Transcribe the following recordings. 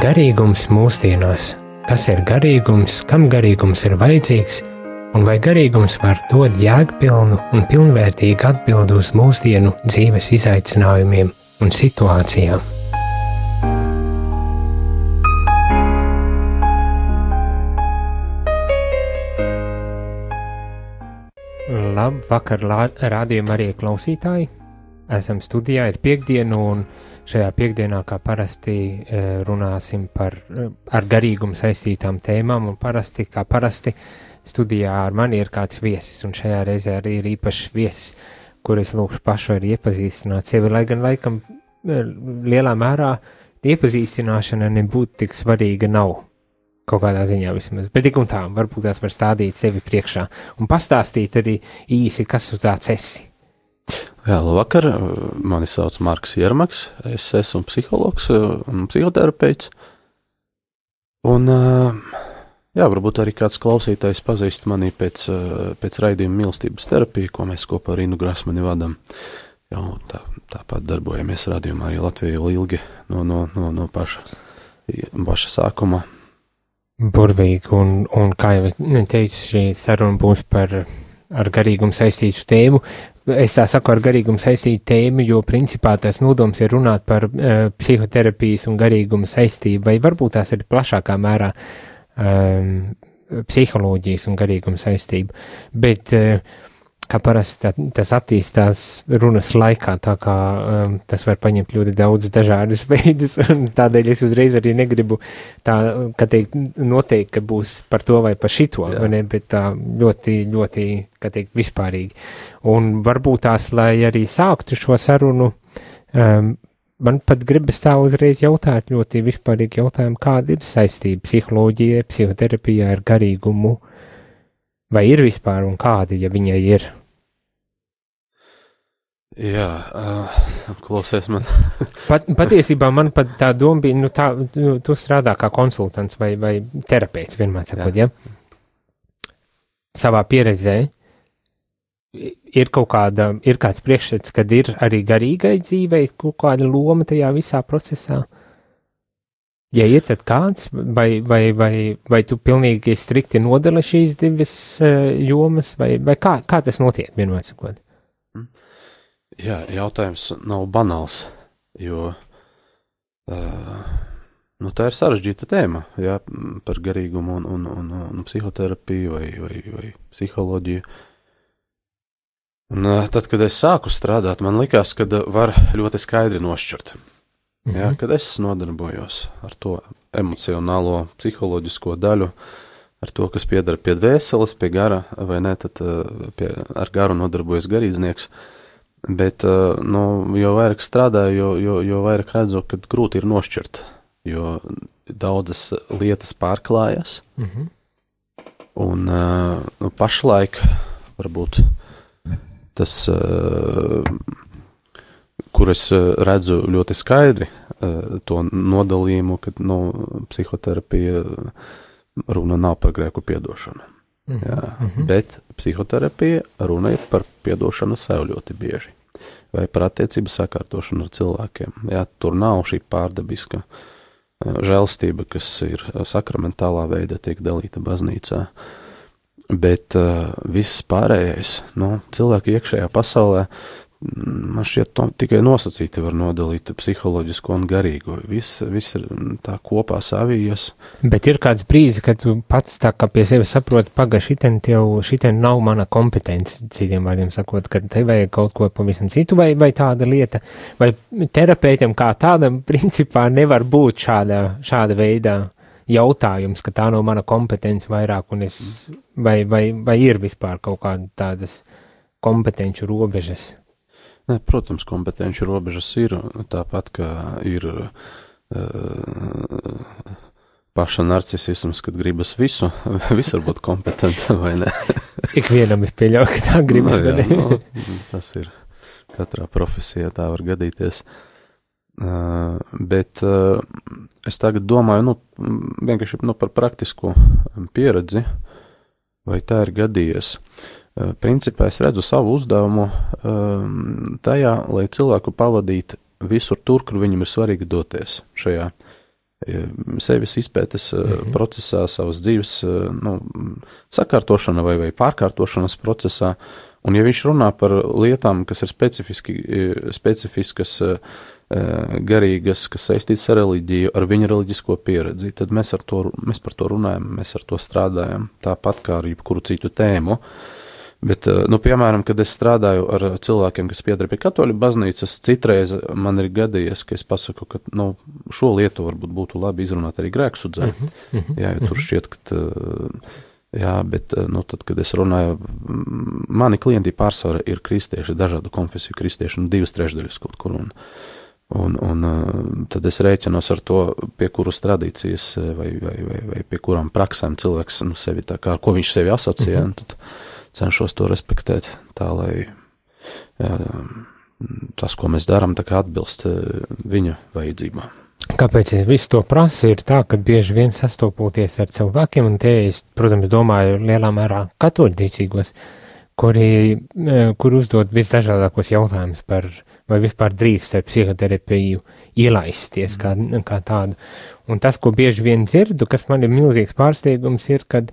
Garīgums mūsdienās. Kas ir garīgums, kam garīgums ir vajadzīgs, un vai garīgums var dot jēgpilnu un pilnvērtīgu atbildi uz mūsdienu dzīves izaicinājumiem un situācijām? Labvakar, rādījuma arī klausītāji. Esam studijā, ir piektdiena, un šajā piekdienā, kā parasti, runāsim ar garīgumu saistītām tēmām, un kā parasti, studijā ar mani ir kāds viesis, un šajā reizē arī ir īpašs viesis, kur es lūkšu pašu arī iepazīstināt sevi, lai gan laikam lielā mērā iepazīstināšana nebūtu tik svarīga nav, kaut kādā ziņā vismaz, bet tik un tā, varbūt tās var stādīt sevi priekšā un pastāstīt arī īsi, kas tu tāds esi. Jā, labvakar, mani sauc Marks Jermaks, es esmu psihologs un psihoterapeits, un, jā, varbūt arī kāds klausītājs pazīst mani pēc raidījuma mīlestības terapija, ko mēs kopā ar Inu Grasmani vadam. Jau tāpat darbojamies radījumā arī Latvijā ilgi no paša sākuma. Burvīgi, un kā jau teicu, šī saruna būs ar garīgumu saistītu tēmu. Es tā saku ar garīgumu saistītu tēmu, jo principā tas nodoms ir runāt par psihoterapijas un garīgumu saistību, vai varbūt tās ir plašākā mērā psiholoģijas un garīgumu saistību. Bet kā parasti tas attīstās runas laikā, tā kā tas var paņemt ļoti daudz dažādus veidus, un tādēļ es uzreiz arī negribu tā, ka teikt, noteikti, ka būs par to vai par šito, ne, bet tā ļoti, ļoti, kā teikt, vispārīgi. Un varbūt tās, lai arī sāktu šo sarunu, man pat gribas tā uzreiz jautāt ļoti vispārīgi jautājumu, kāda ir saistība psiholoģija, psihoterapijā ar garīgumu, vai ir vispār un kāda, ja viņai ir? Jā, klausies man. Patiesībā man pat tā doma bija, tu strādā kā konsultants vai terapeits, vienmēr sakot, ja? Savā pieredzē ir kāds priekšstats, kad ir arī garīgai dzīvei kaut kāda loma tajā visā procesā? Ja ir, tad kāds, vai tu pilnīgi strikti nodali šīs divas jomas, vai kā tas notiek, vienmēr sakot? Jā, jautājums nav banāls, jo tā ir sarežģīta tēma, jā, par garīgumu un psihoterapiju vai psiholoģiju. Un tad, kad es sāku strādāt, man likās, ka var ļoti skaidri nošķirt. Jā, kad es nodarbojos ar to emocionālo, psiholoģisko daļu, ar to, kas piedara pie dvēseles, pie gara, vai ne, tad ar garu nodarbojas garīdznieks. Bet, jo vairāk strādāju, jo vairāk redzu, ka grūti ir nošķirt, jo daudzas lietas pārklājas. Un pašlaik varbūt tas, kur es redzu ļoti skaidri to nodalījumu, ka psihoterapija runa nav par grēku piedošanu. Jā, bet psihoterapija runa ir par piedošanu sev ļoti bieži, vai par attiecību sakārtošanu ar cilvēkiem. Jā, tur nav šī pārdabiska žēlastība, kas ir sakramentālā veidā tiek dalīta baznīcā, bet viss pārējais, cilvēki iekšējā pasaulē, man šķiet, tikai nosacīti var nodalīt psiholoģisko un garīgo. Viss ir tā kopā savijas. Bet ir kāds brīdis, kad tu pats tā kā pie sevi saproti, šitien nav mana kompetence, citiem vārdiem sakot, kad te vajag kaut ko pavisam citu, vai tāda lieta, vai terapeitam kā tādam principā nevar būt šāda veidā jautājums, ka tā nav mana kompetence vairāk, un vai ir vispār kaut kāda tādas kompetenču robežas? Protams, kompetenci robežas ir, tāpat kā ir paša narcisisms, kad gribas visur būt kompetenta, vai ne? Ikvienam es pieļauju, ka tā gribas, vai ne? Tas ir, katrā profesijā tā var gadīties. Bet es tagad domāju, vienkārši par praktisko pieredzi, vai tā ir gadījies. Principā es redzu savu uzdevumu tajā, lai cilvēku pavadītu visur tur, kur viņam ir svarīgi doties šajā sevis izpētes procesā, savas dzīves sakārtošana vai pārkārtošanas procesā. Un ja viņš runā par lietām, kas ir specifiskas, garīgas, kas saistītas ar reliģiju, ar viņa reliģisko pieredzi, tad mēs par to runājam, mēs ar to strādājam, tāpat kā ar jebkuru citu tēmu. Bet, piemēram, kad es strādāju ar cilvēkiem, kas pieder pie katoļu baznīcas, citreiz man ir gadījies, ka es pasaku, ka, šo lietu varbūt būtu labi izrunāt arī grēksudzē. Jā, jo tur šķiet, ka, bet, tad, kad es runāju, mani klienti pārsvarā ir kristieši, dažādu konfesiju kristieši, 2/3 kaut kur, un tad es rēķinos ar to, pie kuras tradīcijas vai pie kurām praksēm cilvēks, sevi tā kā, ar ko viņš sevi asociē, un tad cenšos to respektēt, tā lai tas, ko mēs darām, tā kā atbilst viņa vajadzībām. Kāpēc es visu to prasu, ir tā, ka bieži vien sastopoties ar cilvēkiem, un te es, protams, domāju lielā mērā katoļticīgos, kur uzdod visdažādākos jautājumus par, vai vispār drīkst ar psihoterapiju ielaisties kā tādu. Un tas, ko bieži vien dzirdu, kas man ir milzīgs pārsteigums, ir, kad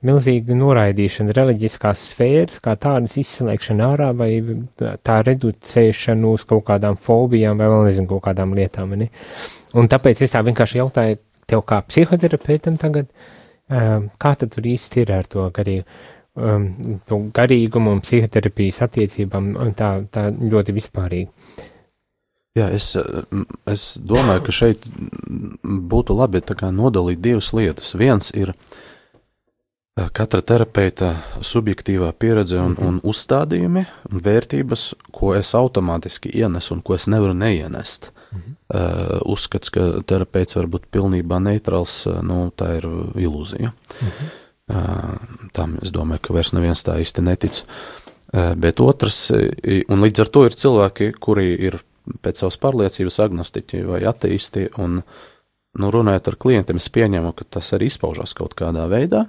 milzīga noraidīšana reliģiskās sfēras, kā tādas izslēgšana ārā, vai tā reducēšana uz kaut kādām fobijām, vai vēl nezinu, kaut kādām lietām. Ne? Un tāpēc es tā vienkārši jautāju tev kā psihoterapeitam tagad, kā tad tur īsti ir ar to garīgumu un psihoterapijas attiecībām, tā ļoti vispārīgi. Jā, es domāju, ka šeit būtu labi tā kā nodalīt divas lietas. Viens ir katra terapeita subjektīvā pieredze un uzstādījumi un vērtības, ko es automātiski ienesu un ko es nevaru neienest. Uzskats, ka terapeits var būt pilnībā neitrāls, tā ir ilūzija. Tam es domāju, ka vairs neviens tā īsti netic. Bet otrs, un līdz ar to ir cilvēki, kuri ir pēc savas pārliecības agnostiķi vai ateisti, un, runājot ar klientiem, es pieņemu, ka tas arī izpaužās kaut kādā veidā,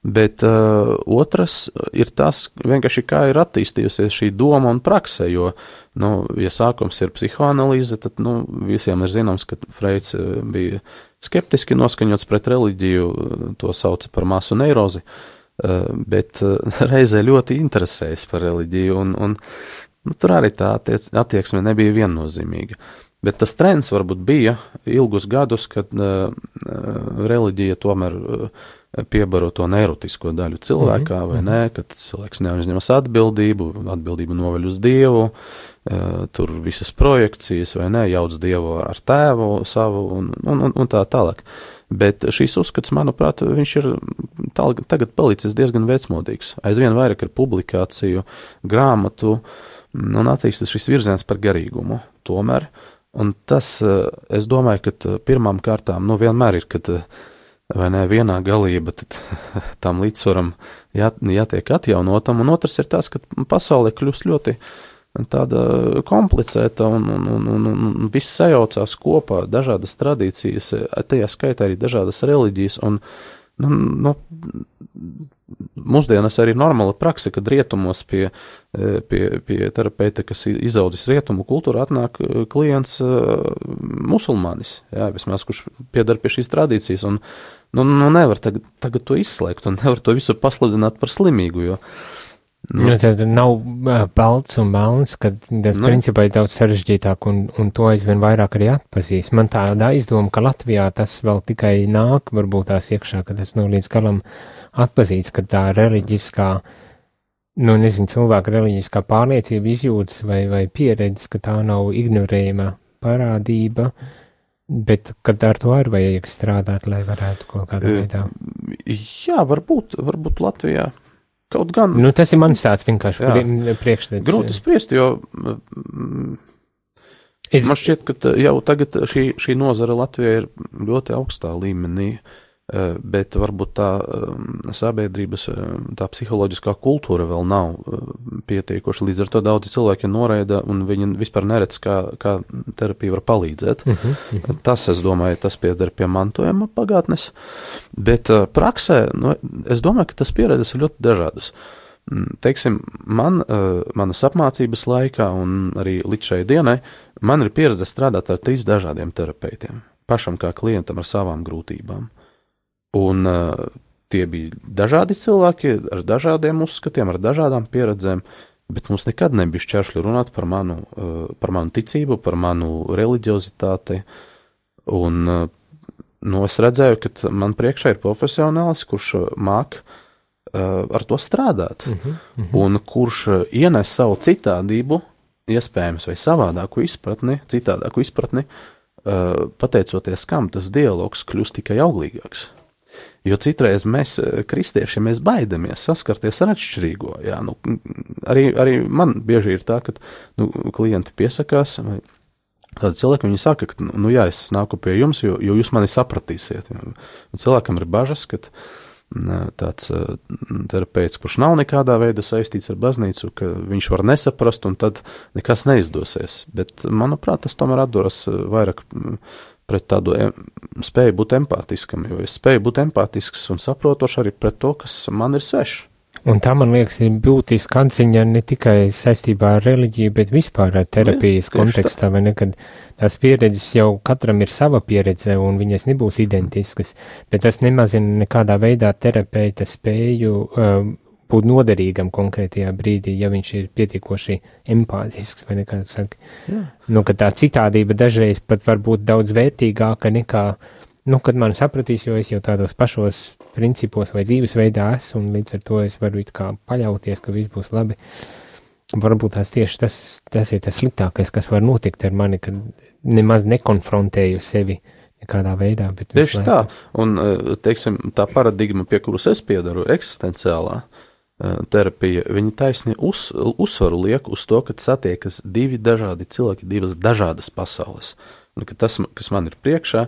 bet otrs ir tas, vienkārši kā ir attīstījusies šī doma un prakse, jo, ja sākums ir psihoanalīze, tad, visiem ir zināms, ka Freids bija skeptiski noskaņots pret reliģiju, to sauca par masu neirozi, bet reizē ļoti interesējas par reliģiju, un tur arī tā attieksme nebija viennozīmīga. Bet tas trends varbūt bija ilgus gadus, kad reliģija tomēr piebaro to neirotisko daļu cilvēkā, vai ne, kad cilvēks neuzņemas atbildību noveļ uz Dievu, tur visas projekcijas, vai ne, jauc Dievu ar tēvu savu un tā tālāk. Bet šīs uzskats, manuprāt, viņš ir tagad palicis diezgan vecmodīgs. Aizvien vairāk ir publikāciju, grāmatu, un attīstas šis virziens par garīgumu tomēr. Un tas, es domāju, ka pirmām kārtām, vienmēr ir, kad vai ne, vienā galība, tad tam līdzsvaram jātiek atjaunotam, un otrs ir tas, ka pasaulē kļūst ļoti tāda komplicēta un viss sajaucās kopā, dažādas tradīcijas, tajā skaitā arī dažādas reliģijas, un mūsdienās arī normāla prakse, kad rietumos pie terapeita, kas izaudzis rietumu kultūru, atnāk klients musulmanis, vismaz, kurš piedar pie šīs tradīcijas, un nevar tagad to izslēgt, un nevar to visu pasludināt par slimīgu, jo tad nav balts un melns, kad principā ir daudz sarežģītāk, un to aizvien vairāk arī atpazīst. Man tāda aizdoma, ka Latvijā tas vēl tikai nāk, varbūt tās iekšā, ka tas nav līdz galam atpazīts, ka tā reliģiskā, cilvēka reliģiskā pārliecība izjūtas vai pieredze, ka tā nav ignorējama parādība, bet kad ar to arī vajag strādāt, lai varētu kaut kādā veidā. Jā, varbūt Latvijā. Kaut gan. Tas ir mans tāds vienkārši priekšstats. Grūti spriest, jo man šķiet, ka jau tagad šī nozara Latvijā ir ļoti augstā līmenī, bet varbūt tā sabiedrības, tā psiholoģiskā kultūra vēl nav pietiekoša. Līdz ar to daudzi cilvēki noraida, un viņi vispār neredz, kā terapija var palīdzēt. Tas, es domāju, tas pieder pie mantojuma pagātnes, bet praksē, es domāju, ka tas pieredzes ir ļoti dažādas. Teiksim, manas apmācības laikā un arī līdz šai dienai, man ir pieredze strādāt ar 3 dažādiem terapeitiem. pašam kā klientam ar savām grūtībām. Un tie bija dažādi cilvēki ar dažādiem uzskatiem, ar dažādām pieredzēm, bet mums nekad nebija šķēršļi runāt par manu ticību, par manu reliģiozitāti. Un es redzēju, ka man priekšā ir profesionāls, kurš māk ar to strādāt, un kurš ienes savu citādību, iespējams, vai savādāku izpratni, citādāku izpratni, pateicoties kam tas dialogs kļūst tikai auglīgāks. Jo citreiz mēs, kristieši, mēs baidamies saskarties ar atšķirīgo. Jā, arī man bieži ir tā, ka klienti piesakās, vai tādi cilvēki, viņi saka, ka, jā, es nāku pie jums, jo jūs mani sapratīsiet. Un cilvēkam ir bažas, ka tāds terapeits, kurš nav nekādā veidā saistīts ar baznīcu, ka viņš var nesaprast, un tad nekas neizdosies. Bet, manuprāt, tas tomēr atduras vairāk pret tādu spēju būt empātiskam, jo es spēju būt empātisks un saprotoši arī pret to, kas man ir svešs. Un tā, man liekas, ir būtiska atziņa ne tikai saistībā ar reliģiju, bet vispār ar terapijas kontekstā, vai ne, kad tās pieredzes jau katram ir sava pieredze un viņas nebūs identiskas, bet tas nemazina nekādā veidā terapeita spēju būt noderīgam konkrētajā brīdī, ja viņš ir pietiekoši empātisks, vai nekā saka. Ka tā citādība dažreiz pat var būt daudz vērtīgāka nekā, kad man sapratīs, jo es jau tādos pašos principos vai dzīvesveidā esmu, un līdz ar to es varu it kā paļauties, ka viss būs labi. Varbūt tieši tas ir tas sliktākais, kas var notikt ar mani, kad nemaz nekonfrontēju sevi nekādā veidā. Tieši tā, un, teiksim, tā paradigma, pie kuras es piedaru, eksistenciālā terapija, viņi taisni uzsvaru liek uz to, ka satiekas divi dažādi cilvēki, divas dažādas pasaules. Un ka tas, kas man ir priekšā,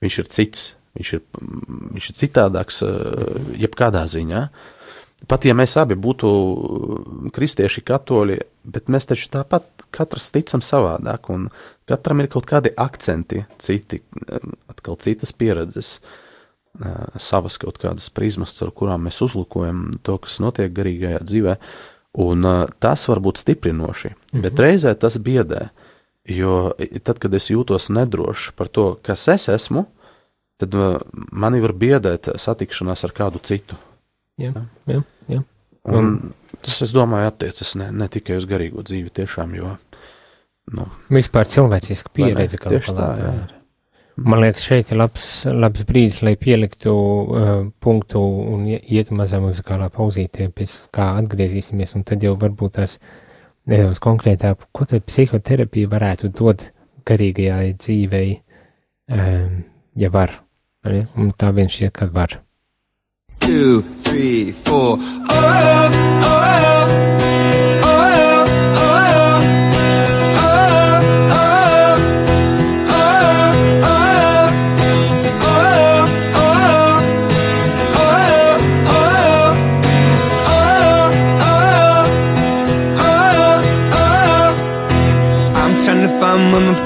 viņš ir cits, viņš ir citādāks jebkādā ziņā. Pat ja mēs abi būtu kristieši, katoļi, bet mēs taču tāpat katrs ticam savādāk, un katram ir kaut kādi akcenti, citi, atkal citas pieredzes, savas kaut kādas prizmas, ar kurām mēs uzlūkojam to, kas notiek garīgajā dzīvē, un tas var būt stiprinoši, bet reizē tas biedē, jo tad, kad es jūtos nedrošs par to, kas es esmu, tad mani var biedēt satikšanās ar kādu citu. Jā. Un tas, es domāju, attiecas ne tikai uz garīgo dzīvi tiešām, jo, vispār cilvēciska pieredze, kā palātā ir. Man liekas, šeit ir labs brīdis, lai pieliktu punktu un iet mazā muzikālā pauzītē, pēc kā atgriezīsimies, un tad jau varbūt tās nedaudz konkrētāk, ko tad psihoterapija varētu dot garīgajai dzīvei, ja var, un tā vien šķiet, ka var. 2, 3, 4.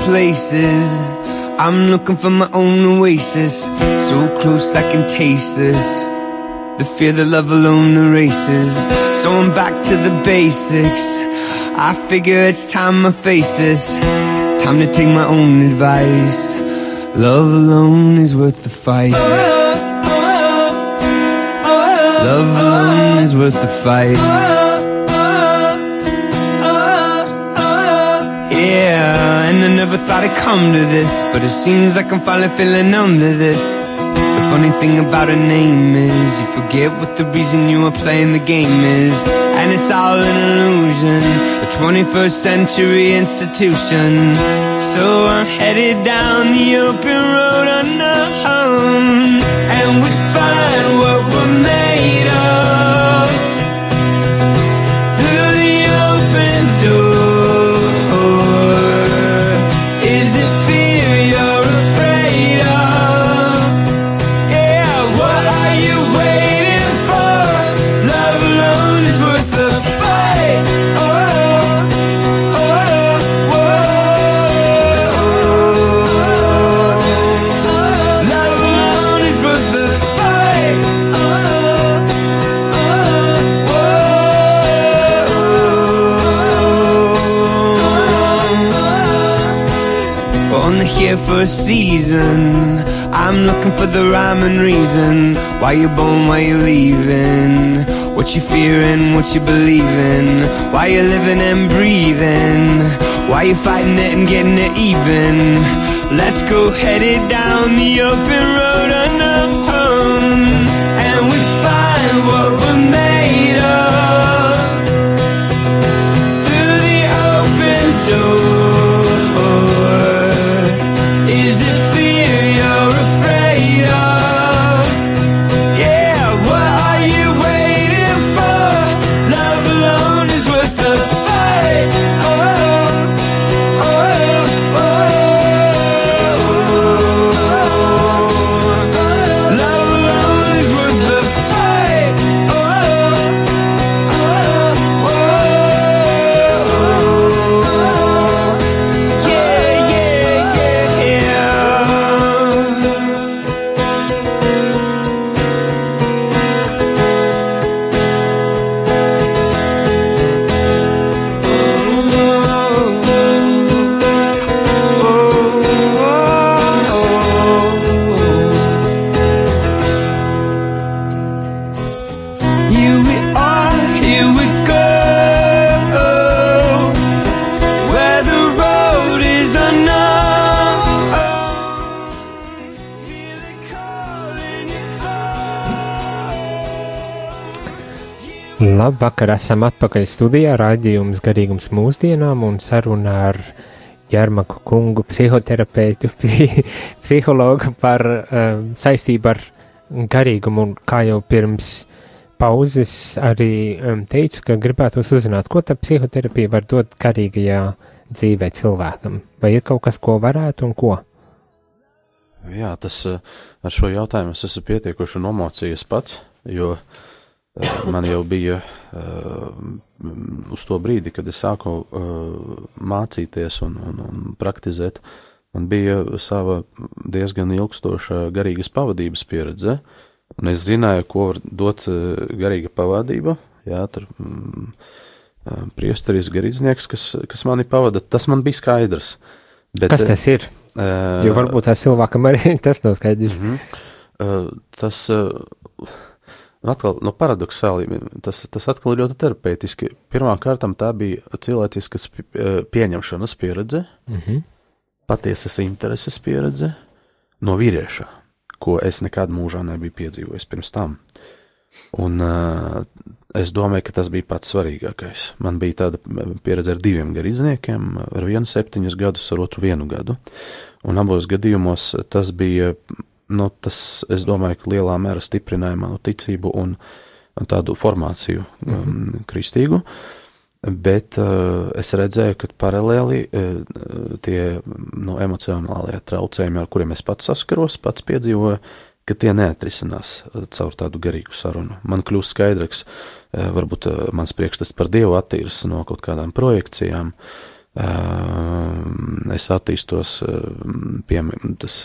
Places. I'm looking for my own oasis, so close I can taste this. The fear that love alone erases. So I'm back to the basics. I figure it's time I face this. Time to take my own advice. Love alone is worth the fight. Love alone is worth the fight. Yeah, and I never thought I'd come to this, but it seems like I'm finally feeling numb to this. The funny thing about a name is you forget what the reason you are playing the game is, and it's all an illusion, a 21st century institution. So I'm headed down the open road unknown, and we find what we're made of through the open door. for a season. I'm looking for the rhyme and reason. Why you born, why you leaving? What you fearing, what you believing? Why you living and breathing? Why you fighting it and getting it even? Let's go headed down the open road unknown, and we find what we're made of through the open door. Is it fear you're afraid of? Yeah, what are you waiting for? Love alone is worth the fight. Labvakar, esam atpakaļ studijā, raidījums Garīgums mūsdienām un saruna ar Ģermaku kungu, psihoterapeitu, psihologu par saistību ar garīgumu, un kā jau pirms pauzes arī teicu, ka gribētos uzzināt, ko tad psihoterapija var dot garīgajā dzīvē cilvēkam, vai ir kaut kas, ko varētu un ko? Jā, tas ar šo jautājumu es esmu pietiekuši nomocījies pats, jo man jau bija uz to brīdi, kad es sāku mācīties un praktizēt, man bija sava diezgan ilgstoša garīgas pavadības pieredze, un es zināju, ko var dot garīga pavadība, jā, tur priesteris garīdznieks, kas mani pavada, tas man bija skaidrs. Bet, kas tas ir? Jo varbūt tās cilvēkam arī tas nav skaidrs. Tas... Atkal, no paradoksāli, tas atkal ļoti terapeitiski. Pirmā kārtam tā bija cilvēciskas pieņemšanas pieredze, patiesas intereses pieredze no vīrieša, ko es nekad mūžā nebiju piedzīvojis pirms tam. Un es domāju, ka tas bija pats svarīgākais. Man bija tāda pieredze ar 2 garīdzniekiem, ar vienu 7 gadus, ar otru 1 gadu. Un abos gadījumos tas bija... tas, es domāju, ka lielā mērā stiprināja manu ticību un tādu formāciju kristīgu, bet es redzēju, ka paralēli tie emocionālie traucējumi, ar kuriem es pats saskaros, pats piedzīvoju, ka tie neatrisinās caur tādu garīgu sarunu. Man kļūst skaidrs, varbūt mans priekšstats par Dievu attīras no kaut kādām projekcijām, es attīstos, tas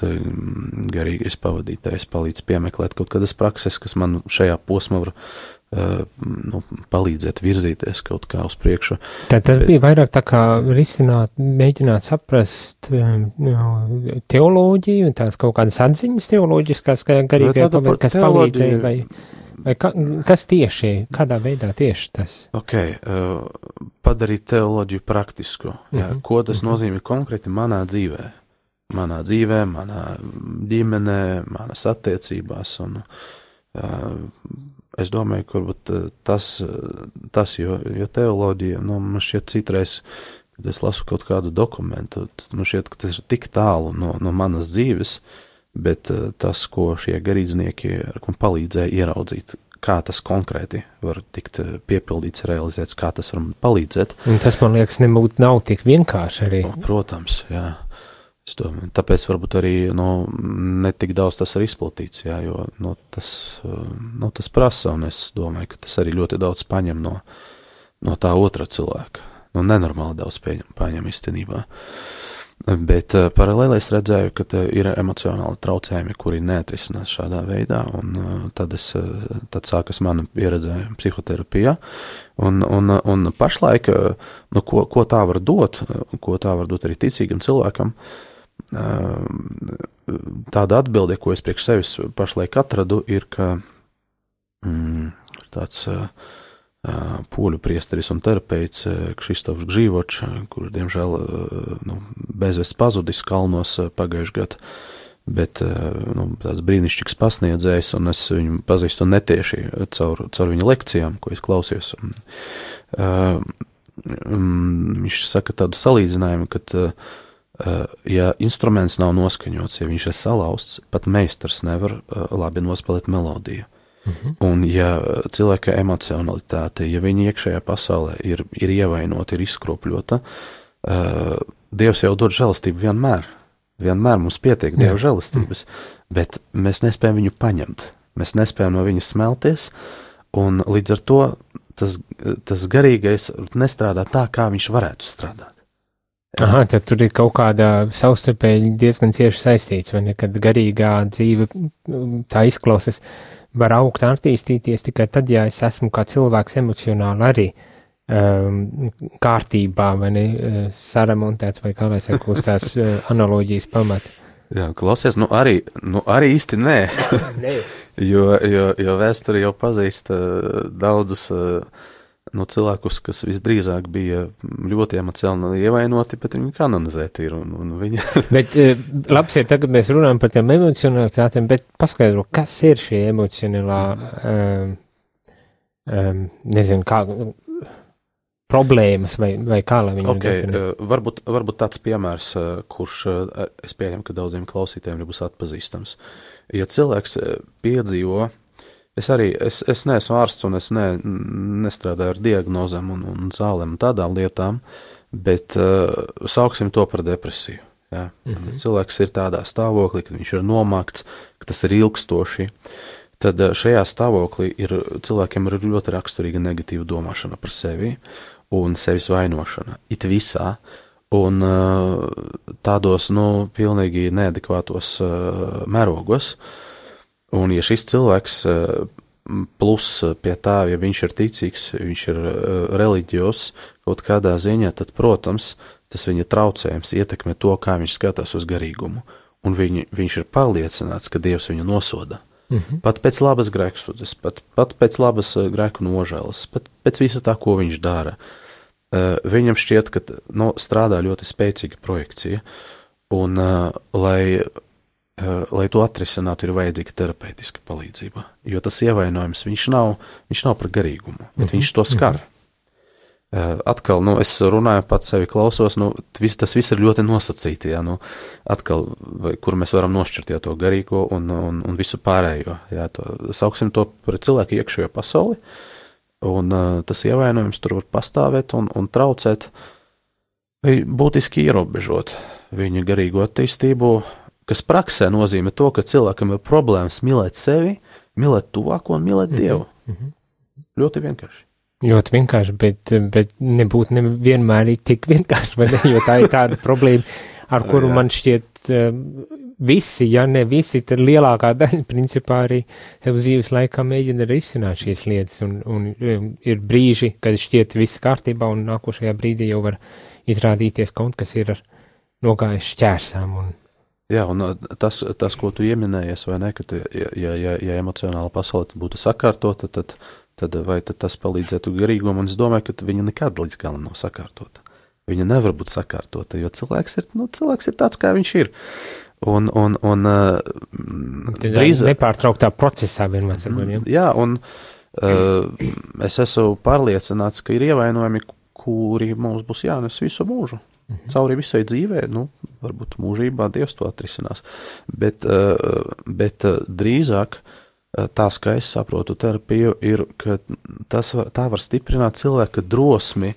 garīgais pavadītājs palīdz piemeklēt kaut kādas prakses, kas man šajā posmā var palīdzēt virzīties kaut kā uz priekšu. Tad tas bija vairāk tā kā risināt, mēģināt saprast teoloģiju un tās kaut kādas atziņas teoloģiskās, garīgajā pavadītājs, kas palīdzēja, vai kas tieši, kādā veidā tieši tas? Padarīt teoloģiju praktisku. Jā, ko tas nozīmē konkrēti manā dzīvē? Manā ģimenē, manas attiecībās. Un, es domāju, ka varbūt tas jo teoloģija, man šķiet citreiz, kad es lasu kaut kādu dokumentu, man šķiet, ka tas ir tik tālu no manas dzīves, bet tas, ko šie garīdznieki man palīdzēja ieraudzīt, kā tas konkrēti var tikt piepildīts, realizēts, kā tas var man palīdzēt. Un tas, man liekas, nav tik vienkārši arī. Protams, jā. Es domāju, tāpēc varbūt arī ne tik daudz tas ir izplatīts, jā, jo tas prasa, un es domāju, ka tas arī ļoti daudz paņem no tā otra cilvēka. Nenormāli daudz paņem īstenībā. Bet paralēli es redzēju, ka ir emocionāli traucējumi, kuri neatrisinās šādā veidā, un tad sākas mana pieredze psihoterapijā, un pašlaik, ko tā var dot arī ticīgam cilvēkam, tāda atbilde, ko es priekš sevis pašlaik atradu, ir, ka tāds poļu priesteris un terapeits Kristofs Gžīvočs, kurš, diemžēl, bezvests pazudis kalnos pagājuši gadu, bet tāds brīnišķīgs pasniedzējs, un es viņu pazīstu netieši caur viņa lekcijām, ko es klausījos. Viņš saka tādu salīdzinājumu, ka, ja instruments nav noskaņots, ja viņš ir salauzts, pat meistars nevar labi nospēlēt melodiju. Un ja cilvēka emocionalitāte, ja viņa iekšējā pasaulē ir ievainota, ir izkropļota, Dievs jau dod žēlastību vienmēr. Vienmēr mums pietiek Dieva žēlastības, bet mēs nespējam viņu paņemt. Mēs nespējam no viņa smelties, un līdz ar to tas garīgais nestrādā tā, kā viņš varētu strādāt. Aha, tad tur ir kaut kādā savstarpēji diezgan cieši saistīts, vai ne, kad garīgā dzīve tā izklausas, var augt un attīstīties tikai tad, ja es esmu kā cilvēks emocionāli arī kārtībā, vai ne, saremontēts, vai kā lai saka, uz tās analoģijas pamata. Jā, klausies, arī īsti nē, jo vēsture jau pazīst daudzus cilvēkus, kas visdrīzāk bija ļoti emocionāli ievainoti, bet viņi kanonizēti ir, un viņi... Bet labs ir, tagad mēs runājam par tiem emocionalitātiem, bet paskaidro, kas ir šī emocionālā, nezinu, kā... problēmas vai kā lai viņu definē? Varbūt tāds piemērs, kurš es pieņemu, ka daudziem klausītājiem nebūs atpazīstams. Ja cilvēks piedzīvo, es neesmu ārsts un es nestrādāju ar diagnozēm un zālēm un tādām lietām, bet sauksim to par depresiju. Ja? Cilvēks ir tādā stāvoklī, kad viņš ir nomakts, ka tas ir ilgstoši, tad šajā stāvoklī cilvēkiem ir ļoti raksturīga negatīva domāšana par sevi un sevis vainošana, it visā, un tādos, pilnīgi neadekvātos mērogos, un ja šis cilvēks plus pie tā, ja viņš ir ticīgs, viņš ir reliģijos kaut kādā ziņā, tad, protams, tas viņa traucējums ietekmē to, kā viņš skatās uz garīgumu, un viņš ir pārliecināts, ka Dievs viņu nosoda. Pat pēc labas grēksūdzes, pat pēc labas grēku nožēlas, pat pēc visa tā, ko viņš dara. Viņam šķiet, ka strādā ļoti spēcīga projekcija, un lai to atrisinātu, ir vajadzīga terapeitiska palīdzība, jo tas ievainojums, viņš nav par garīgumu, bet viņš to skar. Atkal, es runāju pats sevi klausos, tas viss ir ļoti nosacīti, jā, atkal, kur mēs varam nošķirt, jā, to garīgo un visu pārējo, jā, sauksim to par cilvēku iekšējo pasauli, un tas ievainojums tur var pastāvēt un traucēt, vai būtiski ierobežot viņa garīgo attīstību, kas praksē nozīmē to, ka cilvēkam ir problēmas mīlēt sevi, mīlēt tuvāko un mīlēt Dievu. Ļoti vienkārši. Ļoti vienkārši, bet nebūtu vienmēr tik vienkārši, vai ne, jo tā ir tāda problēma, ar kuru man šķiet visi, ja ne visi, tad lielākā daļa principā arī tev dzīves laikā mēģina risināt šīs lietas, un ir brīži, kad šķiet viss kārtībā, un nākošajā brīdī jau var izrādīties kaut kas ir nogājis šķērsām. Jā, un tas, ko tu ieminējies, vai ne, ka ja emocionāla pasaule būtu sakārtota, tad tas palīdzētu garīgumam, un es domāju, ka viņa nekad līdz galam nav sakārtota. Viņa nevar būt sakārtota, jo cilvēks ir tāds, kā viņš ir. Un nepārtrauktā procesā vienmēr sakot, ja? Jā, un es esmu pārliecināts, ka ir ievainojumi, kuri mums būs jānes visu mūžu. Cauri visai dzīvē, varbūt mūžībā Dievs to atrisinās, bet drīzāk tās, kā es saprotu terapiju, ir, ka tā var stiprināt cilvēka drosmi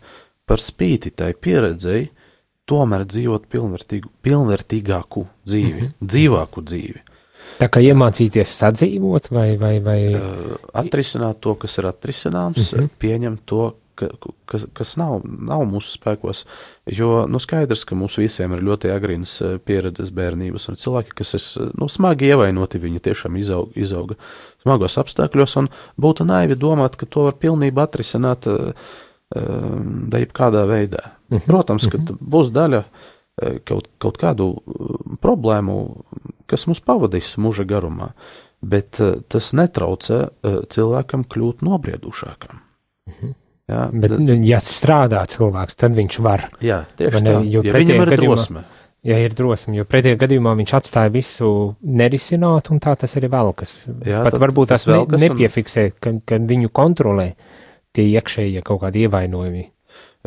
par spīti tai pieredzei, tomēr dzīvot pilnvērtīgāku dzīvi, dzīvāku dzīvi. Tā kā iemācīties sadzīvot vai... Atrisināt to, kas ir atrisināms, pieņemt to, kas nav mūsu spēkos, jo skaidrs, ka mums visiem ir ļoti agrīnas pieredzes bērnības, un cilvēki, kas ir smagi ievainoti, viņi tiešām izauga smagos apstākļos, un būtu naivi domāt, ka to var pilnībā atrisināt jebkādā veidā. Protams, ka būs daļa kaut kādu problēmu, kas mums pavadīs mūža garumā, bet tas netraucē cilvēkam kļūt nobriedušākam. Jā, bet, ja strādā cilvēks, tad viņš var. Jā, tieši tā, ja viņam ir drosme. Ja ir drosme, jo pretējā gadījumā viņš atstāja visu nerisināt, un tā tas arī velkas. Jā, pat varbūt tas nepiefiksē, ka viņu kontrolē tie iekšējie kaut kādi ievainojumi.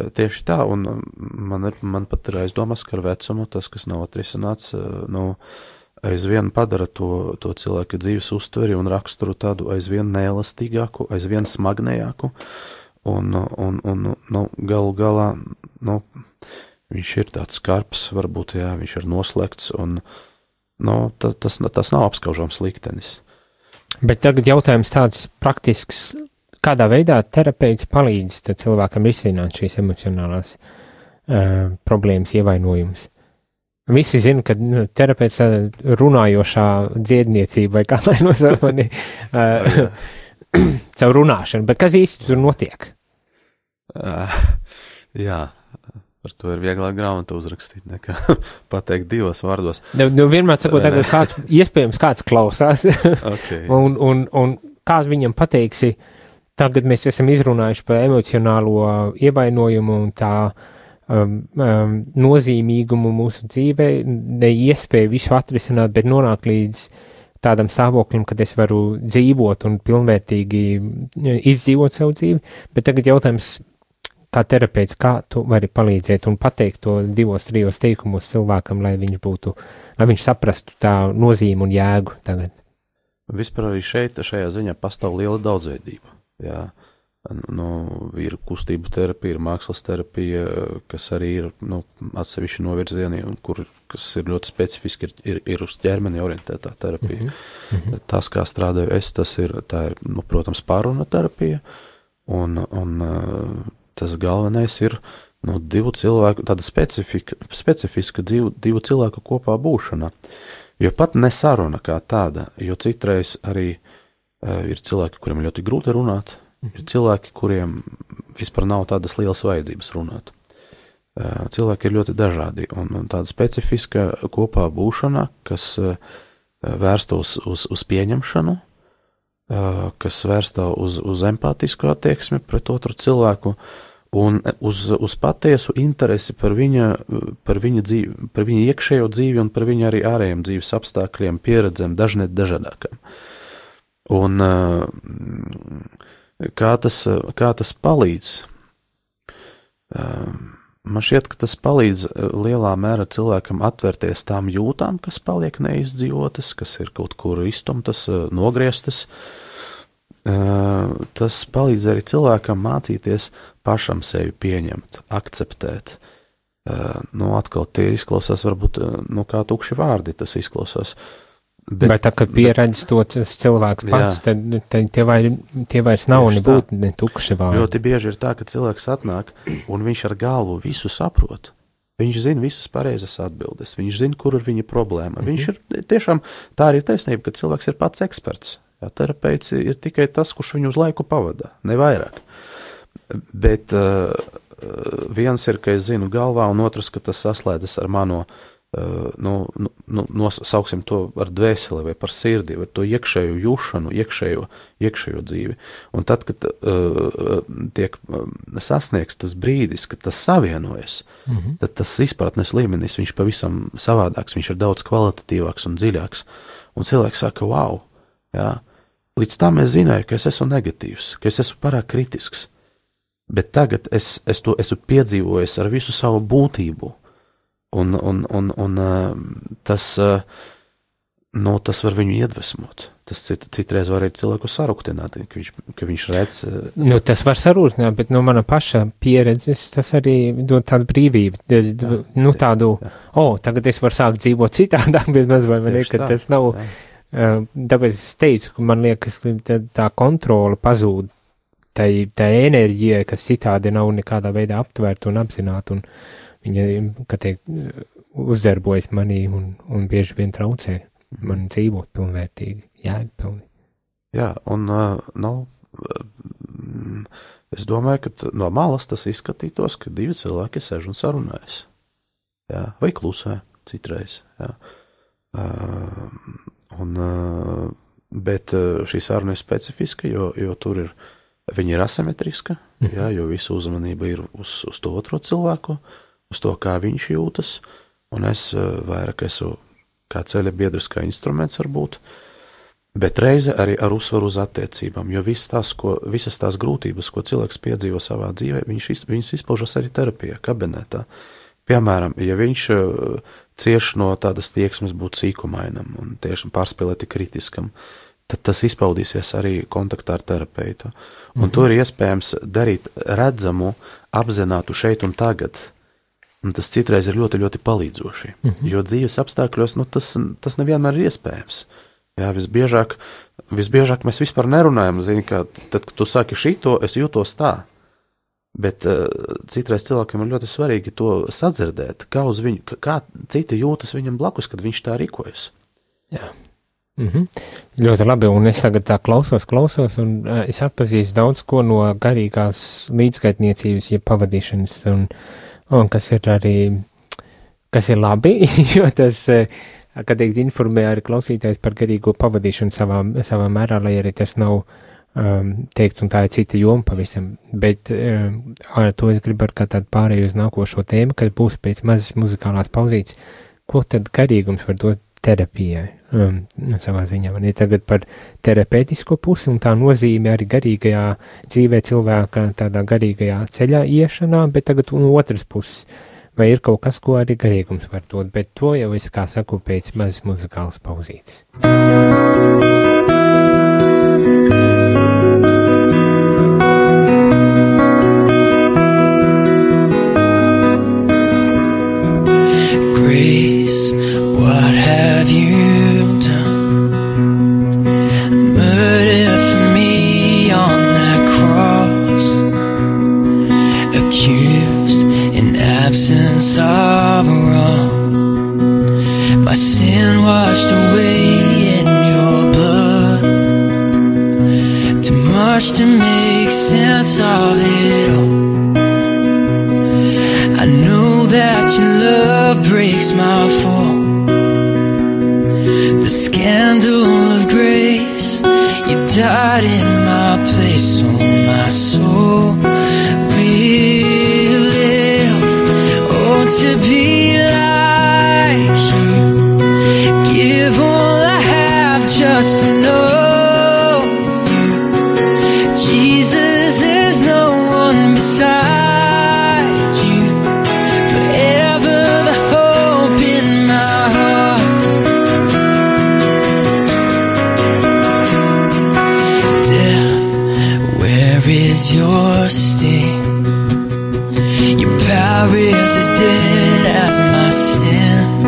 Tieši tā, un man pat ir aizdomas, ka ar vecumu tas, kas nav atrisināts, aizvien padara to cilvēka dzīves uztveri un raksturu tādu aizvien neelastīgāku, aizvien smagnējāku, un galu galā, viņš ir tāds skarbs, varbūt, jā, viņš ir noslēgts, un, tas nav apskaužams liktenis. Bet tagad jautājums tāds praktisks, kādā veidā terapeits palīdz cilvēkam risināt šīs emocionālās problēmas, ievainojumus? Visi zina, ka terapeits runājošā dziedniecība vai kā lai nosaukt caur runāšanu, bet kas īsti tur notiek? Jā, par to ir vieglāk grāmatu uzrakstīt, nekā pateikt divos vārdos. Vienmēr sakot, tagad iespējams kāds klausās, okay. un kā viņam pateiksi, tagad mēs esam izrunājuši par emocionālo ievainojumu un tā nozīmīgumu mūsu dzīvē, neiespēju visu atrisināt, bet nonāk līdz tādam stāvoklim, kad es varu dzīvot un pilnvērtīgi izdzīvot savu dzīvi, bet tagad jautājums, kā terapeits, kā tu vari palīdzēt un pateikt to 2-3 teikumos cilvēkam, lai viņš saprastu tā nozīmi un jēgu tagad? Vispār arī šajā ziņā pastāv liela daudzveidība, jā. Ir kustību terapija, ir mākslas terapija, kas arī ir atsevišķi novirzieni, kas ir ļoti specifiski, ir uz ķermeni orientētā terapija. Tas, kā strādāju es, tā ir, protams, pārruna terapija, un tas galvenais ir divu cilvēku, tāda specifiska divu cilvēku kopā būšana. Jo pat nesaruna kā tāda, jo citreiz arī ir cilvēki, kuriem ļoti grūti runāt, ir cilvēki, kuriem vispār nav tādas lielas vajadzības runāt. Cilvēki ir ļoti dažādi, un tāda specifiska kopā būšana, kas vērsta uz pieņemšanu, kas vērsta uz empātisku attieksmi pret otru cilvēku, un uz patiesu interesi par viņa dzīvi, par viņa iekšējo dzīvi un par viņa arī ārējiem dzīves apstākļiem, pieredzēm, dažādākām. Un kā tas palīdz? Man šķiet, ka tas palīdz lielā mērā cilvēkam atvērties tām jūtām, kas paliek neizdzīvotas, kas ir kaut kur iztumtas, nogrieztas. Tas palīdz arī cilvēkam mācīties pašam sevi pieņemt, akceptēt. Atkal tie izklausās varbūt, kā tukši vārdi tas izklausās. Bet tā, kad pieredz to cilvēks pats, tad tie vairs nav nebūt ne tukši vārdi. Ļoti bieži ir tā, ka cilvēks atnāk un viņš ar galvu visu saprot. Viņš zina visas pareizas atbildes, viņš zina, kur ir viņa problēma. Viņš ir tiešām, tā arī taisnība, ka cilvēks ir pats eksperts. Jā, terapeits ir tikai tas, kurš viņu uz laiku pavada, ne vairāk. Bet viens ir, ka es zinu galvā, un otrs, ka tas saslēdzas ar mano sauksim to ar dvēseli vai par sirdi, vai to iekšējo jūšanu, iekšējo dzīvi. Un tad, kad tiek sasniegts tas brīdis, kad tas savienojas, tad tas izpratnes līmenis, viņš pavisam savādāks, viņš ir daudz kvalitatīvāks un dziļāks. Un cilvēks saka, wow, jā, līdz tam es zināju, ka es esmu negatīvs, ka es esmu pārāk kritisks, bet tagad es to esmu piedzīvojis ar visu savu būtību. Un tas var viņu iedvesmot. Tas citreiz var arī cilvēku sarūktināt, ka viņš redz. Tas var sarūktināt, bet no mana paša pieredzes tas arī dod tādu brīvību. Tagad es varu sākt dzīvot citādāk, bet maz vai ne, ka tas nav. Tāpēc es teicu, ka man liekas, ka tā kontrola pazūd. Tā enerģija, kas citādi nav nekādā veidā aptvērta un apzināta, un viņa, kā teikt, uzdarbojas manī un bieži vien traucē man dzīvot pilnvērtīgi, jēgpilni. Jā, un es domāju, ka no malas tas izskatītos, ka divi cilvēki sēž un sarunājas. jā, vai klusē citreiz, jā. Bet šī saruna ir specifiska, jo tur viņa ir asimetriska, jā, jo visa uzmanība ir uz to otro cilvēku, uz to, kā viņš jūtas, un es vairāk esmu kā ceļa biedrs, kā instruments varbūt, bet reize arī ar uzsvaru uz attiecībām, jo visas tās grūtības, ko cilvēks piedzīvo savā dzīvē, viņas izpaužas arī terapijā, kabinetā. Piemēram, ja viņš cieš no tādas tieksmes būt sīkumainam un tiešām pārspēlēti kritiskam, tad tas izpaudīsies arī kontaktā ar terapeitu. Un to ir iespējams darīt redzamu, apzinātu šeit un tagad. Un tas citreiz ir ļoti, ļoti palīdzoši, jo dzīves apstākļos, tas nevienmēr ir iespējams. Jā, visbiežāk mēs vispār nerunājam, zini, ka tad, kad tu saki šito, es jūtos tā, bet citreiz cilvēkiem ir ļoti svarīgi to sadzirdēt, kā citi jūtas viņam blakus, kad viņš tā rīkojas. Jā. Ļoti labi, un es tagad tā klausos, un es atpazīstu daudz ko no garīgās līdzgaitniecības, ja pavadīšanas, un kas ir labi, jo tas, kad teikt, informē arī klausītājs par garīgo pavadīšanu savā mērā, lai arī tas nav teikts, un tā ir cita joma pavisam, bet ar to es gribu ar kā tādu pārēju uz nākošo tēmu, kas būs pēc mazas muzikālās pauzītes, ko tad garīgums var dot terapijai, savā ziņā, man ir tagad par terapeitisko pusi un tā nozīme arī garīgajā dzīvē cilvēka tādā garīgajā ceļā iešanā, bet tagad un otras puses, vai ir kaut kas, ko arī garīgums var dot, bet to jau es, kā saku, pēc mazas muzikālas pauzītes. Grace, what have you done? Murder for me on that cross, accused in absence of wrong. My sin washed away in your blood, too much to make sense of it all. I know that your love breaks my fall. The scandal of grace, you died in my place, so my soul will live. Oh, to be like you, give all I have just to know you. Jesus, there's no one beside. Your sting, your power is as dead as my sin.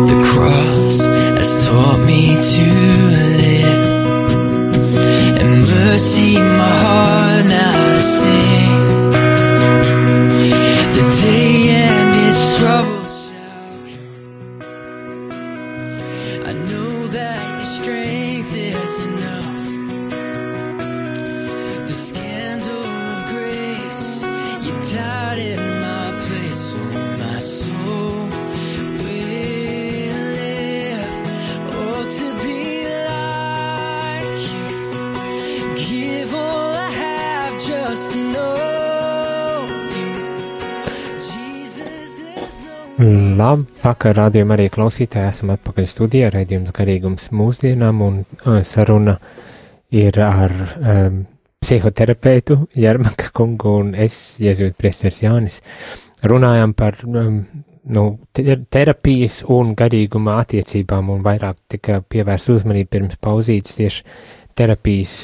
The cross has taught me to live, and mercy my heart now to sing. The day and its troubles shall come. I know that your strength is enough. Labvakar, rādījuma arī klausītāji, esam atpakaļ studijā, raidījums garīgums mūsdienām, un saruna ir ar psihoterapeitu Jermaka kungu un es, jēzuītu priesteris Jānis, runājam par terapijas un garīguma attiecībām, un vairāk tika pievērst uzmanību pirms pauzītes tieši terapijas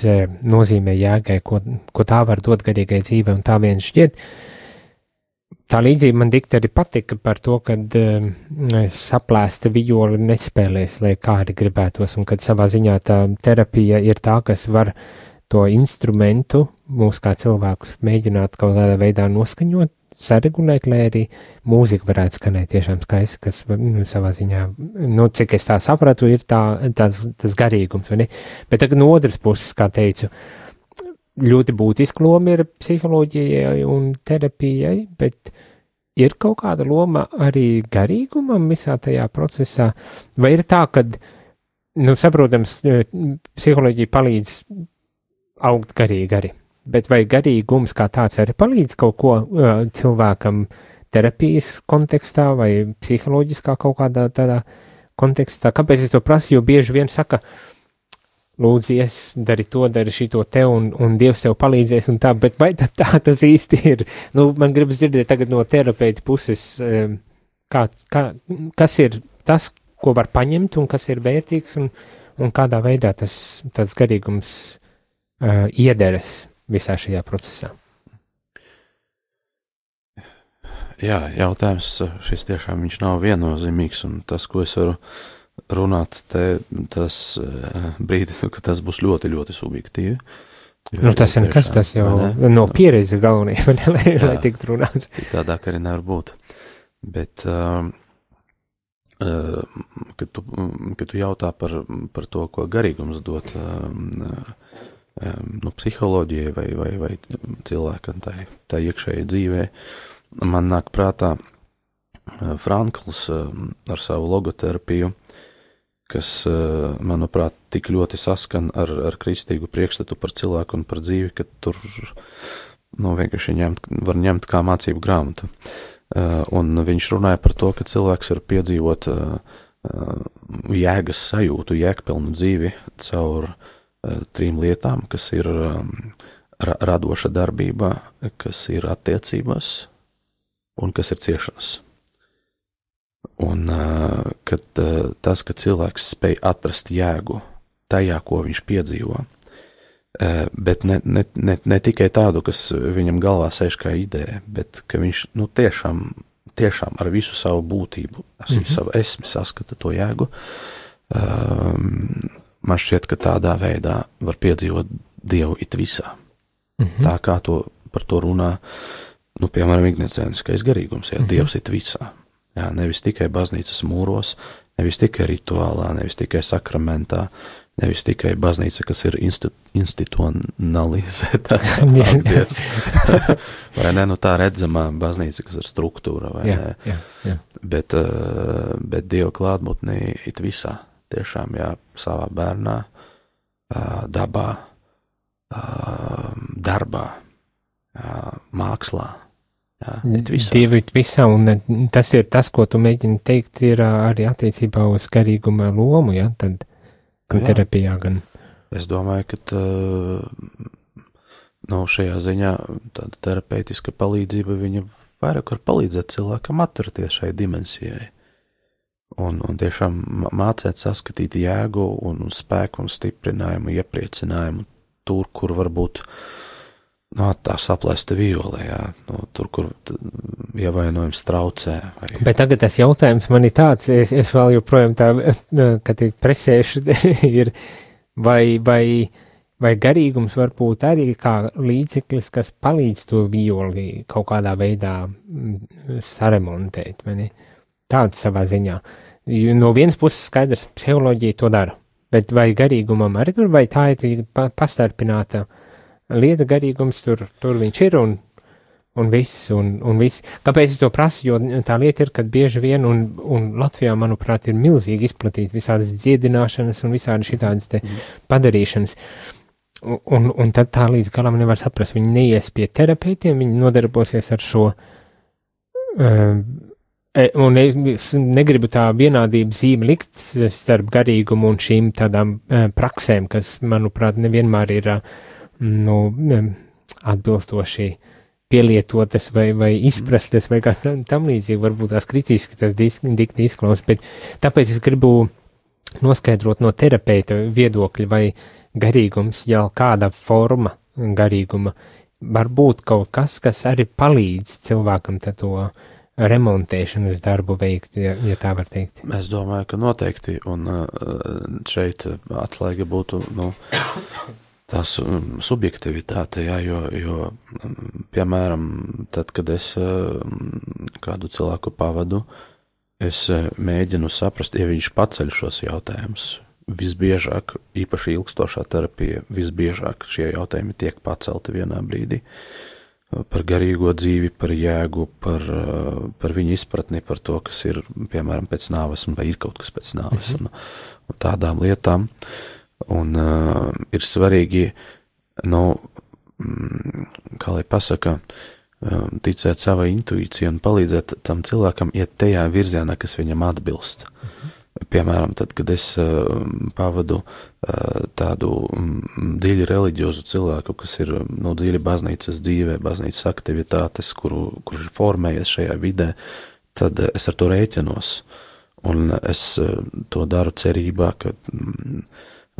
nozīmē jēgai, ko tā var dot garīgai dzīvei, un tā vien šķiet. Tā līdzība man dikti arī patika par to, kad saplēsta vijoli nespēlēs, lai kā arī gribētos, un kad savā ziņā tā terapija ir tā, kas var to instrumentu mūs kā cilvēkus mēģināt kaut kādā veidā noskaņot, saregulēt, lai arī mūzika varētu skanēt tiešām skaisti, kas savā ziņā, cik es tā sapratu, ir tas garīgums, vai ne? Bet tagad no otras puses, kā teicu, ļoti būtiska loma ir psiholoģijai un terapijai, bet ir kaut kāda loma arī garīgumam visā tajā procesā, vai ir tā, ka, saprotams, psiholoģija palīdz augt garīgi arī, bet vai garīgums kā tāds arī palīdz kaut ko cilvēkam terapijas kontekstā vai psiholoģiskā kaut kādā tādā kontekstā? Kāpēc es to prasu? Jo bieži vien saka, lūdzies, dari to, dari šito te, un Dievs tev palīdzēs un tā, bet vai tā tas īsti ir? Man gribas dzirdēt tagad no terapeita puses, kas ir tas, ko var paņemt un kas ir vērtīgs un kādā veidā tas garīgums iederas visā šajā procesā. Jā, jautājums šis tiešām viņš nav viennozīmīgs, un tas, ko es varu runāt, tas brīdi, ka tas būs ļoti, ļoti subjektīvi. Tas ir nekas, tas jau no pieredzes galvenie, lai tiktu runāts. Tādāk arī nevar būt. Bet, kad tu jautā par to, ko garīgums dot psiholoģijai vai cilvēkam tā iekšēji dzīvē, man nāk prātā Frankls ar savu logoterapiju, kas, manuprāt, tik ļoti saskan ar kristīgu priekšstatu par cilvēku un par dzīvi, ka tur vienkārši var ņemt kā mācību grāmatu. Un viņš runāja par to, ka cilvēks var piedzīvot jēgas sajūtu, jēgpilnu dzīvi caur 3 lietām, kas ir radoša darbībā, kas ir attiecībās un kas ir ciešanas. Un kad ka cilvēks spēj atrast jēgu tajā, ko viņš piedzīvo, bet ne tikai tādu, kas viņam galvā sēž kā ideja, bet ka viņš tiešām ar visu savu būtību, savu esmi saskata to jēgu, man šķiet, ka tādā veidā var piedzīvot Dievu it visā. Tā kā par to runā, piemēram, ignicieniskais garīgums, Dievs it visā. Jā, nevis tikai baznīcas mūros, nevis tikai rituālā, nevis tikai sakramentā, nevis tikai baznīca, kas ir institucionalizēta. Vai ne, tā redzamā baznīca, kas ir struktūra, vai ne? Jā. Bet Dieva klātbūtnē it visā, tiešām, savā bērnā, dabā, darbā, mākslā. Dievu it visā, un tas ir tas, ko tu mēģini teikt, ir arī attiecībā uz garīguma lomu, tad gan terapijā, gan. Es domāju, ka šajā ziņā tāda terapeitiska palīdzība, viņa vairāk var palīdzēt cilvēkam atrasties šai dimensijai. Un tiešām mācēt saskatīt jēgu un spēku un stiprinājumu, iepriecinājumu tur, kur varbūt tā saplēsta viole, tur, kur ievainojums traucē. Bet tagad tas jautājums man ir tāds, es vēl joprojām kad presēšu, ir, vai garīgums var būt arī kā līdzeklis, kas palīdz to violi kaut kādā veidā saremontēt, vai ne? Tāds savā ziņā. No vienas puses skaidrs, psiholoģija to dara, bet vai garīgumam arī tur, vai tā ir pastarpināta lieta, garīgums, tur viņš ir un viss. Kāpēc es to prasu? Jo tā lieta ir, kad bieži vien, un Latvijā, manuprāt, ir milzīgi izplatīta visādas dziedināšanas un visādi šitādas te padarīšanas. Un tad tā līdz galam nevar saprast. Viņi neies pie terapeitiem, viņi nodarbosies ar šo, un es negribu tā vienādību zīmi likt starp garīgumu un šīm tādām praksēm, kas, manuprāt, nevienmēr ir atbilstoši pielietotas vai izprastas vai kā tam līdzīgi, varbūt tās kritiski tas dikti izklausās, bet tāpēc es gribu noskaidrot no terapeita viedokļa, vai garīgums, jau kāda forma garīguma, var būt kaut kas, kas arī palīdz cilvēkam to remontēšanas darbu veikt, ja tā var teikt. Es domāju, ka noteikti, un šeit atslēga būtu, tās subjektivitāte, jo, piemēram, tad, kad es kādu cilvēku pavadu, es mēģinu saprast, ja viņš paceļ šos jautājumus. Visbiežāk, īpaši ilgstošā terapija, visbiežāk šie jautājumi tiek pacelti vienā brīdī. par garīgo dzīvi, par jēgu, par viņu izpratni, par to, kas ir, piemēram, pēc nāves, vai ir kaut kas pēc nāves, un tādām lietām. Un ir svarīgi, kā lai pasaka, ticēt savai intuīcijai un palīdzēt tam cilvēkam iet tajā virzienā, kas viņam atbilst. Piemēram, tad, kad es pavadu tādu dziļi reliģiozu cilvēku, kas ir dziļi baznīcas dzīvē, baznīcas aktivitātes, kurš formējies šajā vidē, tad es ar to rēķinos. Un es to daru cerībā, ka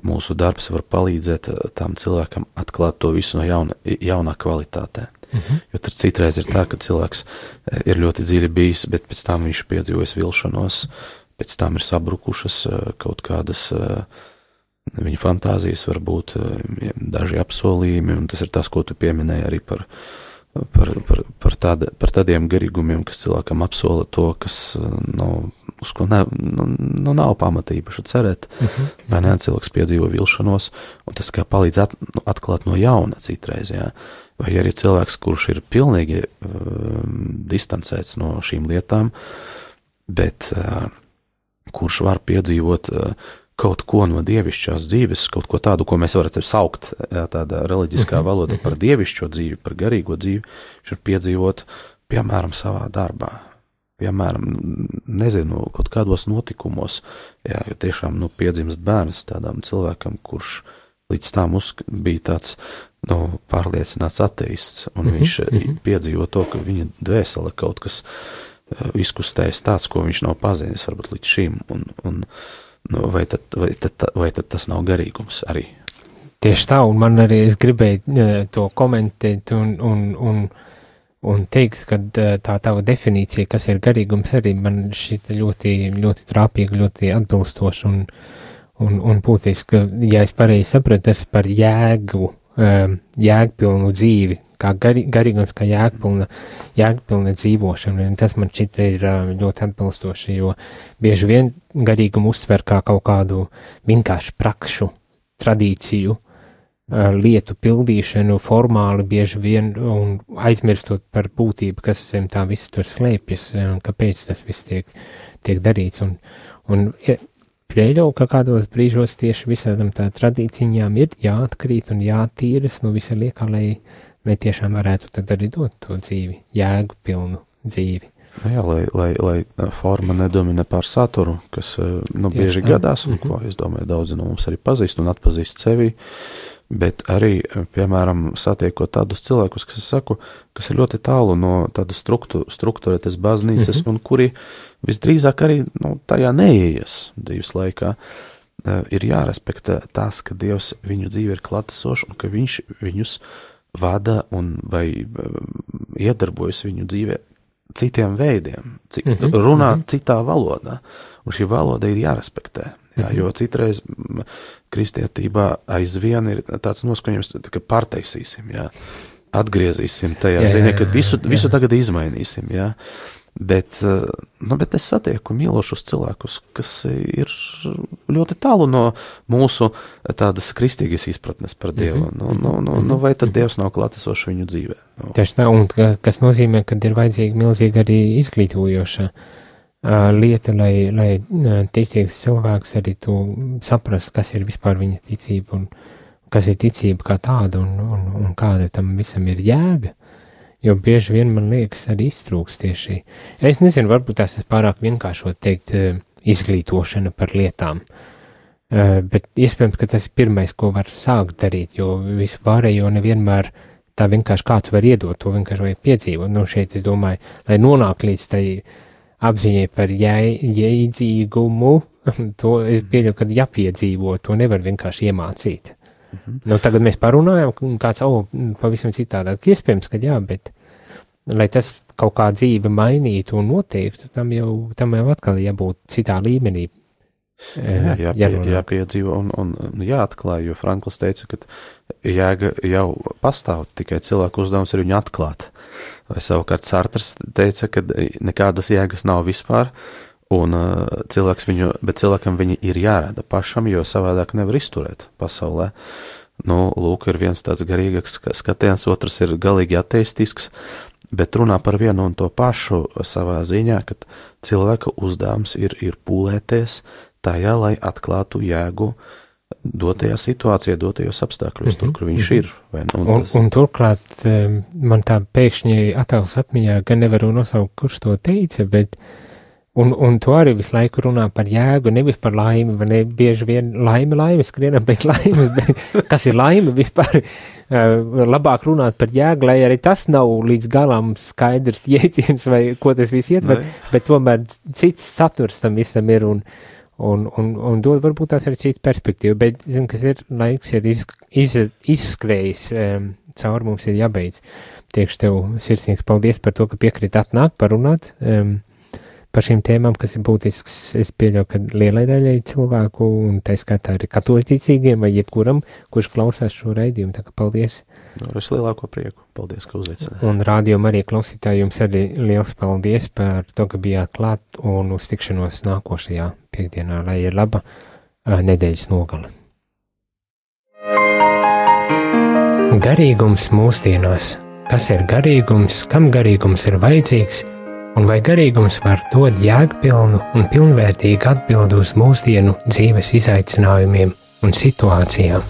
mūsu darbs var palīdzēt tam cilvēkam atklāt to visu no jaunā kvalitātē. Jo tad citreiz ir tā, ka cilvēks ir ļoti dziļi bijis, bet pēc tam viņš piedzīvojas vilšanos, pēc tam ir sabrukušas kaut kādas viņa fantāzijas, varbūt daži apsolījumi, un tas ir tas, ko tu pieminēji arī par tādiem garīgumiem, kas cilvēkam apsola to, kas uz ko nav pamatīpaši cerēt, vai ne, cilvēks piedzīvo vilšanos, un tas kā palīdz atklāt no jauna citreiz, jā. Vai arī cilvēks, kurš ir pilnīgi distancēts no šīm lietām, bet kurš var piedzīvot kaut ko no dievišķās dzīves, kaut ko tādu, ko mēs varētu saukt tādā reliģiskā valoda par dievišķo dzīvi, par garīgo dzīvi, viņš var piedzīvot, piemēram, savā darbā, piemēram, nezinu, kaut kādos notikumos, jā, tiešām, piedzimst bērns tādām cilvēkam, kurš līdz tam bija tāds, pārliecināts ateists, un viņš piedzīvo to, ka viņa dvēsele kaut kas izkustējas tāds, ko viņš nav pazīnis varbūt līdz šim, un vai tad tas nav garīgums arī? Tieši tā, un man arī es gribēju to komentēt un teikt, ka tā tava definīcija, kas ir garīgums, arī man šita ļoti, ļoti trāpīga, ļoti atbilstoša un būtiski, ja es pareizi sapratu, tas par jēgpilnu dzīvi, kā garīgums, kā jēgpilna dzīvošana, un tas man šķita ir ļoti atbilstoši, jo bieži vien garīgumu uztver kā kaut kādu vienkārši prakšu, tradīciju, lietu pildīšanu formāli bieži vien un aizmirstot par būtību, kas zem tā viss tur slēpjas, un kāpēc tas viss tiek darīts, un pieļauju, ka kādos brīžos tieši visādam tā tradīcijām ir jāatkrīt un jātīras no visa liekā, lai tiešām varētu tad arī dot to dzīvi, jēgu pilnu dzīvi. Jā, lai forma nedomina pār saturu, kas bieži gadās, un ko, es domāju, daudzi no mums arī pazīst un atpazīst sevi, bet arī, piemēram, satiekot tādus cilvēkus, kas, es saku, kas ir ļoti tālu no tādas struktūrētas baznīcas, un kuri visdrīzāk arī tajā neieies dzīves laikā, ir jārespektē tas, ka Dievs viņu dzīve ir klātesošs un ka viņš viņus vada un vai iedarbojas viņu dzīvē citiem veidiem, runā citā valodā, un šī valoda ir jārespektē. Jā, jo citreiz kristietībā aizvien ir tāds noskaņojums, ka pārtaisīsim, jā, atgriezīsim tajā ziņā, ka visu tagad izmainīsim, jā. Bet es satieku mīlošus cilvēkus, kas ir ļoti tālu no mūsu tādas kristīgas izpratnes par Dievu. Vai tad Dievs nav klātesošs viņu dzīvē? Tieši tā, un kas nozīmē, ka ir vajadzīga milzīga arī izglītojoša lieta, lai ticīgs cilvēks arī to saprast, kas ir vispār viņa ticība un kas ir ticība kā tāda un kāda tam visam ir jēga. Jo bieži vien man liekas arī iztrūks tieši. Es nezinu, varbūt tas ir pārāk vienkāršot teikt izglītošana par lietām, bet iespējams, ka tas ir pirmais, ko var sākt darīt, jo visu pārējo nevienmēr tā vienkārši kāds var iedot, to vienkārši vajag piedzīvot. Šeit es domāju, lai nonāk līdz tai apziņai par jēdzīgumu, to es pieļauju, ka jāpiedzīvo, to nevar vienkārši iemācīt. Tagad mēs parunājam, kāds, pavisam citādāk, iespējams, ka jā, bet, lai tas kaut kā dzīve mainītu un noteiktu, tam jau atkal jābūt citā līmenī. Jāpiedzīvo un jāatklāj, jo Frankls teica, ka jēga jau pastāv, tikai cilvēku uzdevums ir viņu atklāt. Vai savukārt Sartrs teica, ka nekādas jēgas nav vispār, un cilvēkam viņi ir jārada pašam, jo savādāk nevar izturēt pasaulē. lūk, ir viens tāds garīgāks skatiens, otrs ir galīgi ateistisks, bet runā par vienu un to pašu savā ziņā, ka cilvēka uzdevums ir pūlēties tajā, lai atklātu jēgu dotajā situācijā, dotajos apstākļos, tur, kur viņš ir. Un turklāt man tā pēkšņi attēls atmiņā, gan nevaru nosaukt, kurš to teica, bet un to arī visu laiku runā par jēgu, nevis par laimi, vai ne, bieži vien laime, skrienam pēc laimes, bet kas ir laime vispār, labāk runāt par jēgu, lai arī tas nav līdz galam skaidrs jēdziens, vai ko tas viss ietver, bet tomēr cits saturs tam visam ir, un dod varbūt tās arī citu perspektīvu, bet, zinu, kas ir, laiks ir izskrējis, caur mums ir jābeidz. Tiekšu tev sirsnīgs paldies par to, ka piekrīt atnākt, parunāt, par šīm tēmām, kas ir būtisks, es pieļauju, ka lielai daļai cilvēku, un tā skaitā arī katoļticīgiem vai jebkuram, kurš klausās šo raidījumu, tā kā paldies. Es lielāko prieku, paldies, ka uzveicināji. Un rādījuma arī klausītāji jums arī liels paldies par to, ka bijāt klāt un uz tikšanos nākošajā piekdienā, lai ir laba nedēļas nogale. Garīgums mūsdienās. Kas ir garīgums, kam garīgums ir vajadzīgs? Un vai garīgums var dot jēgpilnu un pilnvērtīgu atbildi uz mūsdienu dzīves izaicinājumiem un situācijām?